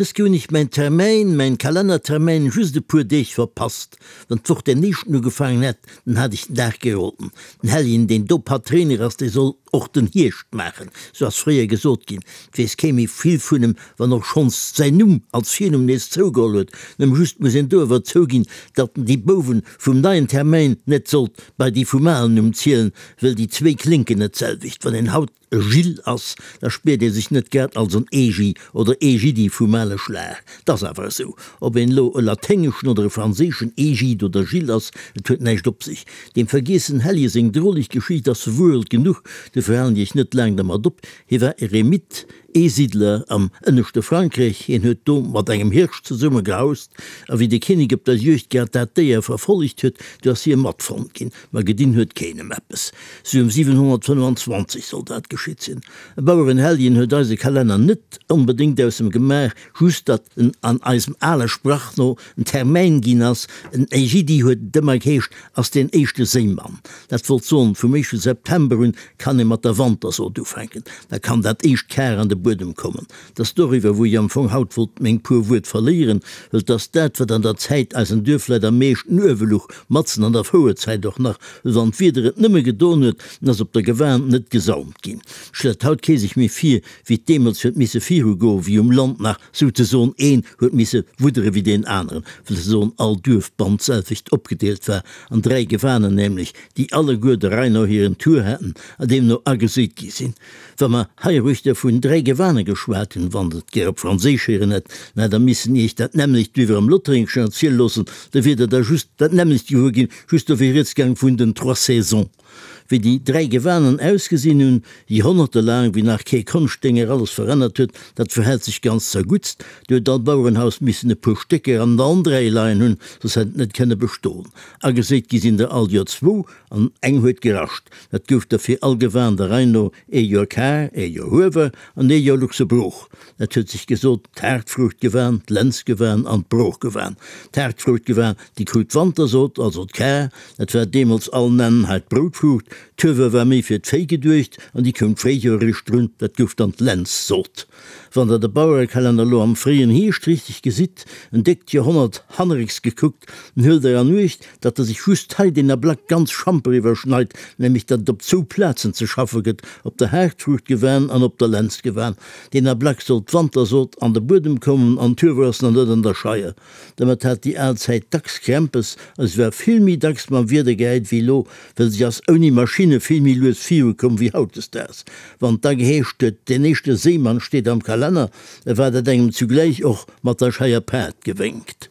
Dës Kéier hunn ech mäin Termäin, mäin Kalennertermäin, just e puer Deeg verpasst. Wann d'Woch den éischten ugefaangen hätt, dann hat ech den Dag geroden. Den Helljen, deen do Patréiner ass, dee soll och den Hierscht maachen, sou ass fréier gesot ginn. Et weess kee méi vill vun em, wann och schonns säin Numm als Virnumm nees zougeholl huet. Nëmme just muss een do awer zouginn, datt en déi Bouwen vum neien Termäin net sollt bei déi vum alen Numm zielen, wëll déi zwéi klénken net d'selwecht. Wann een haut e Gilles ass, da spiert ee sech net grad als en Egi oder Egidi vum ale Schlag. 't ass awer esou, ob een elo e laténgeschen oder e franséischen Egide oder Gilles ass, et huet näischt op sech. Deem vergiessen Helje seng droleg Geschicht ass verwuerelt genuch, dofir halen ech net laang dermat op. Hie war Eremit, Eesiddler am ënneschte Frankräich. Hien huet do mat engem Hirsch zesumme gehaust, a wéi de Kinnek op der Juegd grad dat Déier verfollegt huet, du ass hie matfonnt ginn. Ma gedinn huet keen em eppes. Sou ëm 725 soll dat geschitt sinn. E Bauerenhelljen huet eise Kalenner net onbedéngt aus em gemaach, just datt en an eisem ale Sprach no en Termäin ginn ass. En Ägidi huet et ëmmer geheescht, ass deen éischte Séimann. Dat wollt soen, vum éischte September un kann ee mat der Wantersoot ufänken. Da kann dat éischt Kar an de Buedem kommen. 't ass doriwwer, wou ech am Fong haut wollt meng puer Wuert verléieren, wëll 't ass dat, wat an der Zäit eisen Duerfleit am meeschten uewe luch, matzen an der Fouerzäit och nach, wëll wann d'Wieder et nëmme gedon huet, dann ass op der Gewan net gesaumt ginn. Stellt haut kee sech méi vir, wéi 't deemools huet misse virugoen, wéi um Land nach souzesoen een huet misse wuddere wéi deen aneren, wëll souzesoen all Duerf bannt d'selwecht opgedeelt war an 3 Gewanen nämlech, déi alleguer der Rei no hiren Tour haten a deemno ageséit gi sinn. Wa mer heiruechter vun 3 Gewane geschwat hunn, wann Der et gär op Franséisch héieren hätt, dann hätt Der missen Iech dat nämmlecht wéi wir am Lothréngeschen erziele loossen, da wier Der da just dat nämmlecht gewuer ginn, just do wier rieds gaang vun den trois saisons. Wéi déi 3 Gewanen ausgesinn hunn, joerhonnertelaang, wéi nach kee Konschtdénger alles verännert huet, dat verhält sech ganz zerguttst. Do huet all Bauerenhaus missen e puer Stécker an allen 3 leien hunn, soss hätt et net kënne bestoen. Ageséit gi sinn der all Joer zwou, an eng huet gerascht. Dat gouf da fir all Gewan der Rei no ee Joer Kar, ee Joer Huewer an ee Joer luchse Brooch. Dat huet sech gesot, d'Haartfruuchtgewan, d'Lenzgewan an d'Broochgewan. D'Haartfruuchtgewan, déi krut d'Wantersot, also d'Kar, dat war deemools all nennen hei d'Broutfruucht. D'Huewer war méi fir d'Véi geduecht an déi koum d'Fréijoer eréischt drun, dat gouf dann d'Lenzsot. Wann der de Bauerekalenner elo am fréien Hierscht richteg gesitt, en déckt Joerhonnert hannerécks gekuckt, dann huelt der an Uecht, datt e sech just hei deen Ablack ganz schamper iwwerschneit, nämlech datt et op zwou Plazen ze schaffe gëtt, op der Haartfruuchtgewan an op der Lenzgewan. Deen Ablack soll d'Wantersot an de Buedem kommen an d'Huewer ass nach net an der Scheier. Domat hat déi al Zäit dacks Krämpes a se war vill méi dacks mam Wieder gehäit wéi elo, well se ass ouni Maschinne vill méi lues virukomm wéi hautdesdaags. Wann et da geheescht huet, deen éischte Séimann steet am Kalenner, da war dat engem zugläich och mat der Scheier Paart gewénkt.